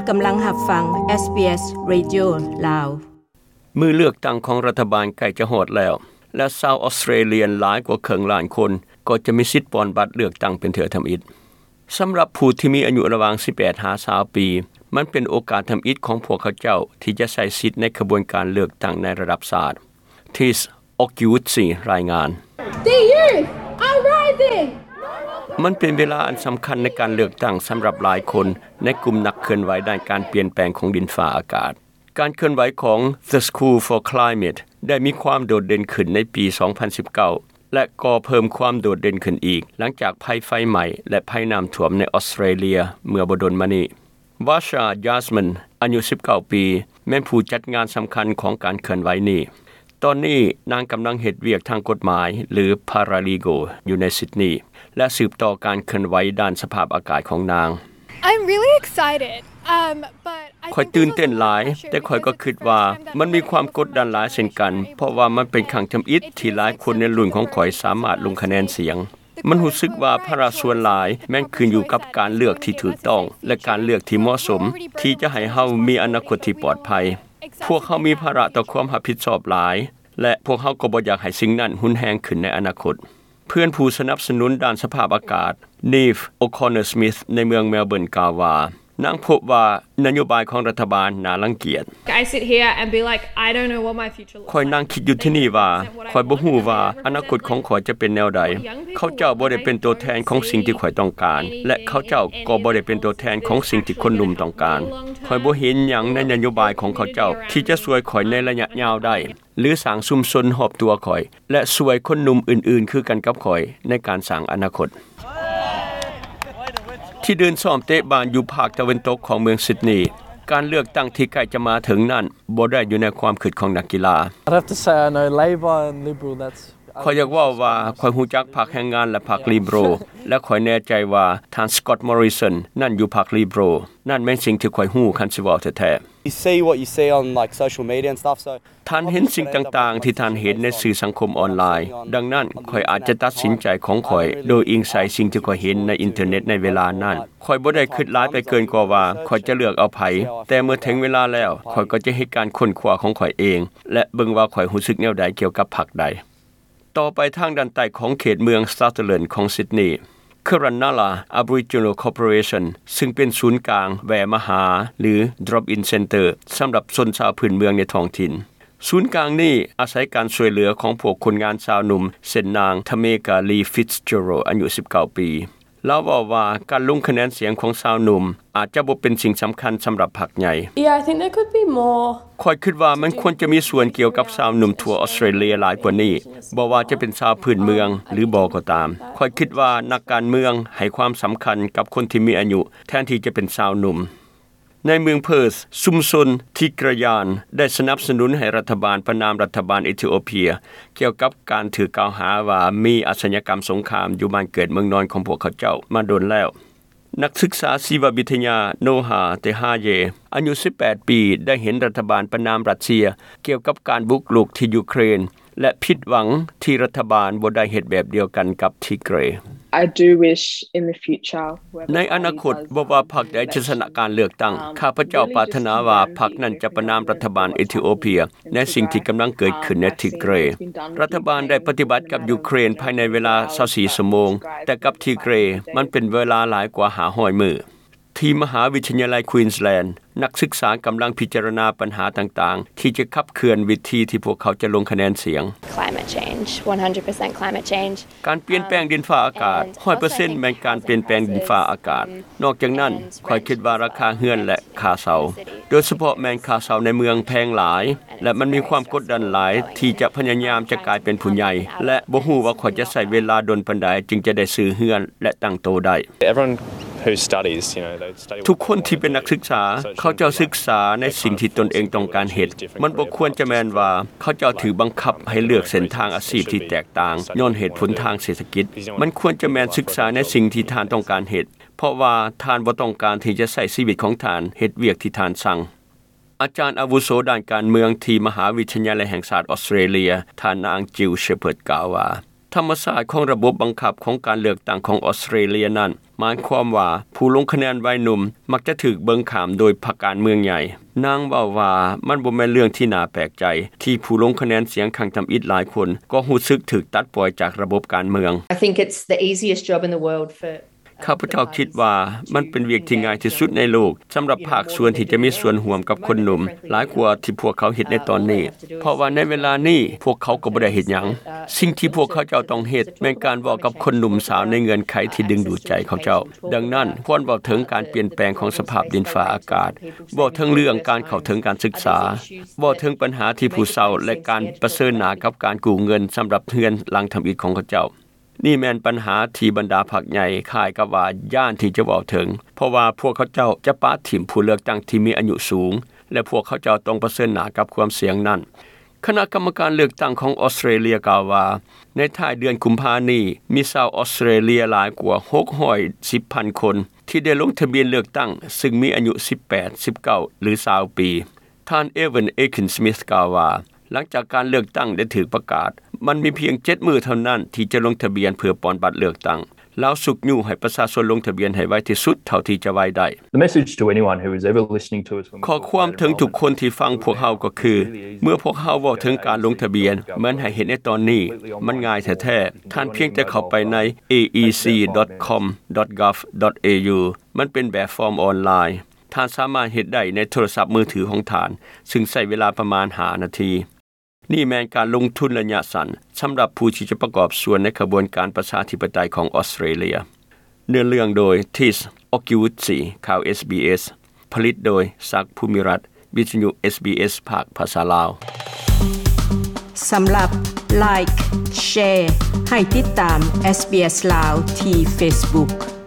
ກຳລັງຮັບຟັງ ເອສບີເອສ ເຣດິໂອ ລາວ. ມື້ເລືອກຕັ້ງຂອງລັດຖະບານໃກ້ຈະຮອດແລ້ວ ແລະ ຊາວອອສເຕຣເລຍຫຼາຍກວ່າເຄິ່ງລ້ານຄົນ ກໍຈະມີສິດປ່ອນບັດເລືອກຕັ້ງເປັນເທື່ອທຳອິດ. ສຳລັບຜູ້ທີ່ມີອາຍຸລະຫວ່າງສິບແປດຫາຊາວປີ, ມັນເປັນໂອກາດທຳອິດຂອງພວກເຂົາເຈົ້າທີ່ຈະໃຊ້ສິດໃນຂະບວນການເລືອກຕັ້ງໃນລະດັບຊາດ. ທິສ ອອກກິວຊິ ລາຍງານ. The youth are rising! ມັນເປັນເວລາອັນສຳຄັນໃນການເລືອກຕັ້ງສຳລັບຫຼາຍຄົນໃນກຸ່ມນັກເຄື່ອນໄຫວດ້ານການປ່ຽນແປງຂອງດິນຟ້າອາກາດ. ການເຄື່ອນໄຫວຂອງ The School for Climate ໄດ້ມີຄວາມໂດດເດັ່ນຂຶ້ນໃນປີສອງພັນສິບເກົ້າ ແລະ ກໍເພີ່ມຄວາມໂດດເດັ່ນຂຶ້ນອີກ ຫຼັງຈາກໄພໄຟໄໝ້ ແລະ ໄພນ້ຳຖ້ວມໃນອອສເຕຣເລຍເມື່ອບໍ່ດົນມານີ້. ວາຊາ ຢາສມິນ ອາຍຸສິບເກົ້າປີ ແມ່ນຜູ້ຈັດງານສຳຄັນຂອງການເຄື່ອນໄຫວນີ້. ຕອນນີ້ນາງກຳລັງເຮັດວຽກທາງກົດໝາຍ ຫຼື paralegal ຢູ່ໃນຊິດນີ ແລະ ສືບຕໍ່ການເຄື່ອນໄຫວດ້ານສະພາບອາກາດຂອງນາງ. I'm really excited. Um, but I ຂ້ອຍ think ຕື່ນເຕັ້ນຫຼາຍ ແຕ່ຂ້ອຍກໍຄິດວ່າມັນມີຄວາມກົດດັນຫຼາຍເຊັ່ນກັນ ເພາະວ່າມັນເປັນຄັ້ງທຳອິດທີ່ຫຼາຍຄົນໃນລຸ້ນຂອງຂ້ອຍສາມາດລົງຄະແນນສຽງ. ມັນຮູ້ສຶກວ່າພາລະສ່ວນຫຼາຍແມ່ນຂຶ້ນຢູ່ກັບການເລືອກທີ່ຖືກຕ້ອງ ແລະ ການເລືອກທີ່ເໝາະສົມ ທີ່ຈະໃຫ້ເຮົາມີອະນາຄົດທີ່ປອດໄພ. ພວກເຮົາມີພາລະຕໍ່ຄວາມຮັບຜິດຊອບຫຼາຍ ແລະ ພວກເຮົາກໍບໍ່ຢາກໃຫ້ສິ່ງນັ້ນຮຸນແຮງຂຶ້ນໃນອະນາຄົດ. ເພື່ອນຜູ້ສະໜັບສະໜູນດ້ານສະພາບອາກາດ ນີຟ ໂອຄອນເນີສມິດ ໃນເມືອງເມລເບີນ ກ່າວວ່າ ນາງພົບວ່ານະໂຍບາຍຂອງລັດຖະບານໜ້າລັງກຽດ. I sit here and be like, I don't know what my future looks like. ຂ້ອຍນັ່ງຄິດຢູ່ທີ່ນີ້ວ່າ ຂ້ອຍບໍ່ຮູ້ວ່າອະນາຄົດຂອງຂ້ອຍຈະເປັນແນວໃດ. ເຂົາເຈົ້າບໍ່ໄດ້ເປັນຕົວແທນຂອງສິ່ງທີ່ຂ້ອຍຕ້ອງການ ແລະ ເຂົາເຈົ້າກໍບໍ່ໄດ້ເປັນຕົວແທນຂອງສິ່ງທີ່ຄົນໜຸ່ມຕ້ອງການ. ຂ້ອຍບໍ່ເຫັນຫຍັງໃນນະໂຍບາຍຂອງເຂົາເຈົ້າທີ່ຈະຊ່ວຍຂ້ອຍໃນໄລຍະຍາວໄດ້ ຫຼື ສ້າງຊຸມຊົນຮອບຕົວຂ້ອຍ ແລະ ຊ່ວຍຄົນໜຸ່ມອື່ນໆຄືກັນກັບຂ້ອຍໃນການສ້າງອະນາຄົດ. ທີ່ເດີ່ນຊ້ອມເຕະບານຢູ່ພາກຕາເວັນຕົກຂອງເມືອງຊິດນີ, ການເລືອກຕັ້ງທີ່ໃກ້ຈະມາເຖິງນັ້ນບໍ່ໄດ້ຢູ່ໃນຄວາມຄິດຂອງນັກກິລາ. I'd have to say I know Labor and Liberal, that's ຂ້ອຍຢາກເວົ້າວ່າຂ້ອຍຮູ້ຈັກພັກແຮງງານ ແລະ ພັກລິເບຣັລ ແລະ ຂ້ອຍແນ່ໃຈວ່າທ່ານ ສະກອດ ມໍຣິສັນ ນັ້ນຢູ່ພັກລິເບຣັລ. ນັ້ນແມ່ນສິ່ງທີ່ຂ້ອຍຮູ້ ຄັນຊິເວົ້າແທ້ໆ. You see what you see on, like, social media and stuff, so ທ່ານເຫັນສິ່ງຕ່າງໆທີ່ທ່ານເຫັນໃນສື່ສັງຄົມອອນລາຍ. ດັ່ງນັ້ນ, ຂ້ອຍອາດຈະຕັດສິນໃຈຂອງຂ້ອຍໂດຍອີງໃສ່ສິ່ງທີ່ຂ້ອຍເຫັນໃນອິນເຕີເນັດໃນເວລານັ້ນ. ຂ້ອຍບໍ່ໄດ້ຄິດຫຼາຍໄປເກີນກວ່າວ່າຂ້ອຍຈະເລືອກເອົາໃຜ, ແຕ່ເມື່ອເຖິງເວລາແລ້ວ, ຂ້ອຍກໍຈະເຮັດການຄົ້ນຄວ້າຂອງຂ້ອຍເອງ ແລະ ເບິ່ງວ່າຂ້ອຍຮູ້ສຶກແນວໃດກ່ຽວກັບພັກໃດ. ຕໍ່ໄປທາງດ້ານໃຕ້ຂອງເຂດເມືອງ Sutherland ຂອງ Sydney, Kununurra Aboriginal Corporation ຊຶ່ງເປັນສູນກາງແວ່ມາຫາ ຫຼື Drop-in Centre ສຳລັບຊົນຊາວພື້ນເມືອງໃນທ້ອງຖິ່ນ. ສູນກາງນີ້ອາໄສການຊ່ວຍເຫຼືອຂອງພວກຄົນງານຊາວໜຸ່ມ ເຊັ່ນນາງ Tameka Lee Fitzgerald ອາຍຸສິບເກົ້າປີ. ລາວເວົ້າວ່າການລົງຄະແນນສຽງຂອງຊາວໜຸ່ມອາດຈະບໍ່ເປັນສິ່ງສຳຄັນສຳລັບພັກໃຫຍ່. Yeah, I think there could be more. ຂ້ອຍຄິດວ່າມັນຄວນຈະມີສ່ວນກ່ຽວກັບຊາວໜຸ່ມທົ່ວອອສເຕຣເລຍຫຼາຍກວ່ານີ້, ບໍ່ວ່າຈະເປັນຊາວພື້ນເມືອງ ຫຼື ບໍ່ກໍຕາມ. ຂ້ອຍຄິດວ່ານັກການເມືອງໃຫ້ຄວາມສຳຄັນກັບຄົນທີ່ມີອາຍຸ ແທນທີ່ຈະເປັນຊາວໜຸ່ມ. ໃນເມືອງເພີດ, ຊຸມຊົນ Tigray ໄດ້ສະໜັບສະໜູນໃຫ້ລັດຖະບານປະນາມລັດຖະບານເອທິໂອເປຍ ກ່ຽວກັບການຖືກກ່າວຫາວ່າມີອາຊະຍາກຳສົງຄາມຢູ່ບ້ານເກີດເມືອງນອນຂອງພວກເຂົາເຈົ້າມາດົນແລ້ວ. ນັກສຶກສາຊີວະວິທະຍາ ໂນຮາ ເຕຮາເຢ ອາຍຸສິບແປດປີ ໄດ້ເຫັນລັດຖະບານປະນາມຣັດເຊຍກ່ຽວກັບການບຸກລຸກທີ່ຢູເຄຣນ ແລະ ຜິດຫວັງທີ່ລັດຖະບານບໍ່ໄດ້ເຮັດແບບດຽວກັນກັບ Tigray. I do wish in the future, whoever party does, um, ໃນອະນາຄົດ, ບໍ່ວ່າພັກໃດຈະຊະນະການເລືອກຕັ້ງ, ຂ້າພະເຈົ້າປາດຖະໜາວ່າພັກນັ້ນຈະປະນາມລັດຖະບານເອທິໂອເປຍ ໃນສິ່ງທີ່ກຳລັງເກີດຂຶ້ນໃນ Tigray. ລັດຖະບານໄດ້ປະຕິບັດກັບຢູເຄຣນພາຍໃນເວລາຊາວສີ່ຊົ່ວໂມງ, ແຕ່ກັບ Tigray ມັນເປັນເວລາຫຼາຍກວ່າຫ້າຮ້ອຍມື້. ທີ່ມະຫາວິທະຍາໄລ Queensland, ນັກສຶກສາກຳລັງພິຈາລະນາບັນຫາຕ່າງໆ ທີ່ຈະຂັບເຄື່ອນວິທີທີ່ພວກເຂົາຈະລົງຄະແນນສຽງ. Climate change, one hundred percent climate change. ການປ່ຽນແປງດິນຟ້າອາກາດ, ຮ້ອຍເປີເຊັນ ແມ່ນການປ່ຽນແປງດິນຟ້າອາກາດ. ນອກຈາກນັ້ນ, ຂ້ອຍຄິດວ່າລາຄາເຮືອນ ແລະ ຄ່າເຊົ່າ, ໂດຍສະເພາະແມ່ນຄ່າເຊົ່າໃນເມືອງແພງຫຼາຍ ແລະ ມັນມີຄວາມກົດດັນຫຼາຍທີ່ຈະພະຍາຍາມຈະກາຍເປັນຜູ້ໃຫຍ່ ແລະ ບໍ່ຮູ້ວ່າຂ້ອຍຈະໃຊ້ເວລາດົນປານໃດຈຶ່ງຈະໄດ້ຊື້ເຮືອນ ແລະ ຕັ້ງໂຕໄດ້. Everyone who studies, you know, they study. ທຸກຄົນທີ່ເປັນນັກສຶກສາ, ເຂົາເຈົ້າສຶກສາໃນສິ່ງທີ່ຕົນເອງຕ້ອງການເຮັດ. ມັນບໍ່ຄວນຈະແມ່ນວ່າເຂົາເຈົ້າຖືກບັງຄັບໃຫ້ເລືອກເສັ້ນທາງອາຊີບທີ່ແຕກຕ່າງຍ້ອນເຫດຜົນທາງເສດຖະກິດ. ມັນຄວນຈະແມ່ນສຶກສາໃນສິ່ງທີ່ທ່ານຕ້ອງການເຮັດ, ເພາະວ່າທ່ານບໍ່ຕ້ອງການທີ່ຈະໃຊ້ຊີວິດຂອງທ່ານເຮັດວຽກທີ່ທ່ານຊັງ. ອາຈານອາວຸໂສດ້ານການເມືອງທີ່ມະຫາວິທະຍາໄລແຫ່ງຊາດອອສເຕຣເລຍ, ທ່ານນາງ Jill Shepherd ກ່າວວ່າ, ທຳມະຊາດຂອງລະບົບບັງຄັບຂອງການເລືອກຕັ້ງຂອງອອສເຕຣເລັຽນັ້ນ ໝາຍຄວາມວ່າຜູ້ລົງຄະແນນວັຍໜຸ່ມມັກຈະຖືກເບິ່ງຂ້າມໂດຍພັກການເມືອງໃຫຍ່. ນາງເວົ້າວ່າ ມັນບໍ່ແມ່ນເລື່ອງທີ່ໜ້າແປກໃຈ ທີ່ຜູ້ລົງຄະແນນສຽງຄັ້ງທຳອິດຫຼາຍຄົນກໍຮູ້ສຶກຖືກຕັດປ່ອຍຈາກລະບົບການເມືອງ. I think it's the easiest job in the world for ຂ້າພະເຈົ້າຄິດວ່າມັນເປັນວຽກທີ່ງ່າຍທີ່ສຸດໃນໂລກ ສຳລັບພາກສ່ວນທີ່ຈະມີສ່ວນຮ່ວມກັບຄົນໜຸ່ມ ຫຼາຍກວ່າທີ່ພວກເຂົາເຮັດໃນຕອນນີ້ ເພາະວ່າໃນເວລານີ້ພວກເຂົາກໍບໍ່ໄດ້ເຮັດຫຍັງ. ສິ່ງທີ່ພວກເຂົາເຈົ້າຕ້ອງເຮັດ ແມ່ນການເວົ້າກັບຄົນໜຸ່ມສາວໃນເງື່ອນໄຂທີ່ດຶງດູດໃຈເຂົາເຈົ້າ. ດັ່ງນັ້ນ ຄວນເວົ້າເຖິງການປ່ຽນແປງຂອງສະພາບດິນຟ້າອາກາດ, ເວົ້າເຖິງເລື່ອງການເຂົ້າເຖິງການສຶກສາ, ເວົ້າເຖິງບັນຫາທີ່ຜູ້ເຊົ່າ ແລະ ການປະເຊີນໜ້າກັບການກູ້ເງິນສຳລັບເຮືອນຫຼັງທຳອິດຂອງເຂົາເຈົ້າ. ນີ້ແມ່ນບັນຫາທີ່ບັນດາພັກໃຫຍ່ຄ້າຍກັບວ່າຢ້ານທີ່ຈະເວົ້າເຖິງ ເພາະວ່າພວກເຂົາເຈົ້າຈະປະຖິ້ມຜູ້ເລືອກຕັ້ງທີ່ມີອາຍຸສູງ ແລະ ພວກເຂົາເຈົ້າຕ້ອງປະເຊີນໜ້າກັບຄວາມສ່ຽງນັ້ນ. ຄະນະກຳມະການເລືອກຕັ້ງຂອງອອສເຕຣເລັຽກ່າວວ່າ ໃນທ້າຍເດືອນກຸມພານີ້ ມີຊາວອອສເຕຣເລັຽຫຼາຍກວ່າ ຫົກຮ້ອຍສິບພັນຄົນ ທີ່ໄດ້ລົງທະບຽນເລືອກຕັ້ງ ຊຶ່ງມີອາຍຸ ສິບແປດ ສິບເກົ້າ ຫຼື ຊາວປີ. ທ່ານ Evan Ekin-Smith ກ່າວວ່າ ຫຼັງຈາກການເລືອກຕັ້ງໄດ້ຖືກປະກາດ, ມັນມີພຽງເຈັດມື້ເທົ່ານັ້ນທີ່ຈະລົງທະບຽນເພື່ອປ່ອນບັດເລືອກຕັ້ງ. ລາວຊຸກຍູ້ໃຫ້ປະຊາຊົນລົງທະບຽນໃຫ້ໄວທີ່ສຸດເທົ່າທີ່ຈະໄວໄດ້. The message to anyone who is ever listening to us when we talk about it ຂໍ້ຄວາມເຖິງທຸກຄົນທີ່ຟັງພວກເຮົາກໍຄື ເມື່ອພວກເຮົາເວົ້າເຖິງການລົງທະບຽນ ແມ່ນໃຫ້ເຮັດໃນຕອນນີ້. ມັນງ່າຍແທ້ໆ. ທ່ານພຽງແຕ່ເຂົ້າໄປໃນ A E C dot com dot gov dot A U. ມັນເປັນແບບຟອມອອນລາຍ. ທ່ານສາມາດເຮັດໄດ້ໃນໂທລະສັບມືຖືຂອງທ່ານ, ຊຶ່ງໃຊ້ເວລາປະມານຫ້ານາທີ. ນີ້ແມ່ນການລົງທຶນໄລຍະສັ້ນສຳລັບຜູ້ທີ່ຈະປະກອບສ່ວນໃນຂະບວນການປະຊາທິປະໄຕຂອງອອສເຕຣເລັຽ. ເນື້ອເລື່ອງໂດຍ Tis Okiwutsi ຂ່າວ SBS. ຜະລິດໂດຍ ສັກ ພູມິລັດ, ວິທະຍຸ SBS ພາກພາສາລາວ. ສຳລັບ Like, Share ໃຫ້ຕິດຕາມ SBS ລາວທີ່ Facebook.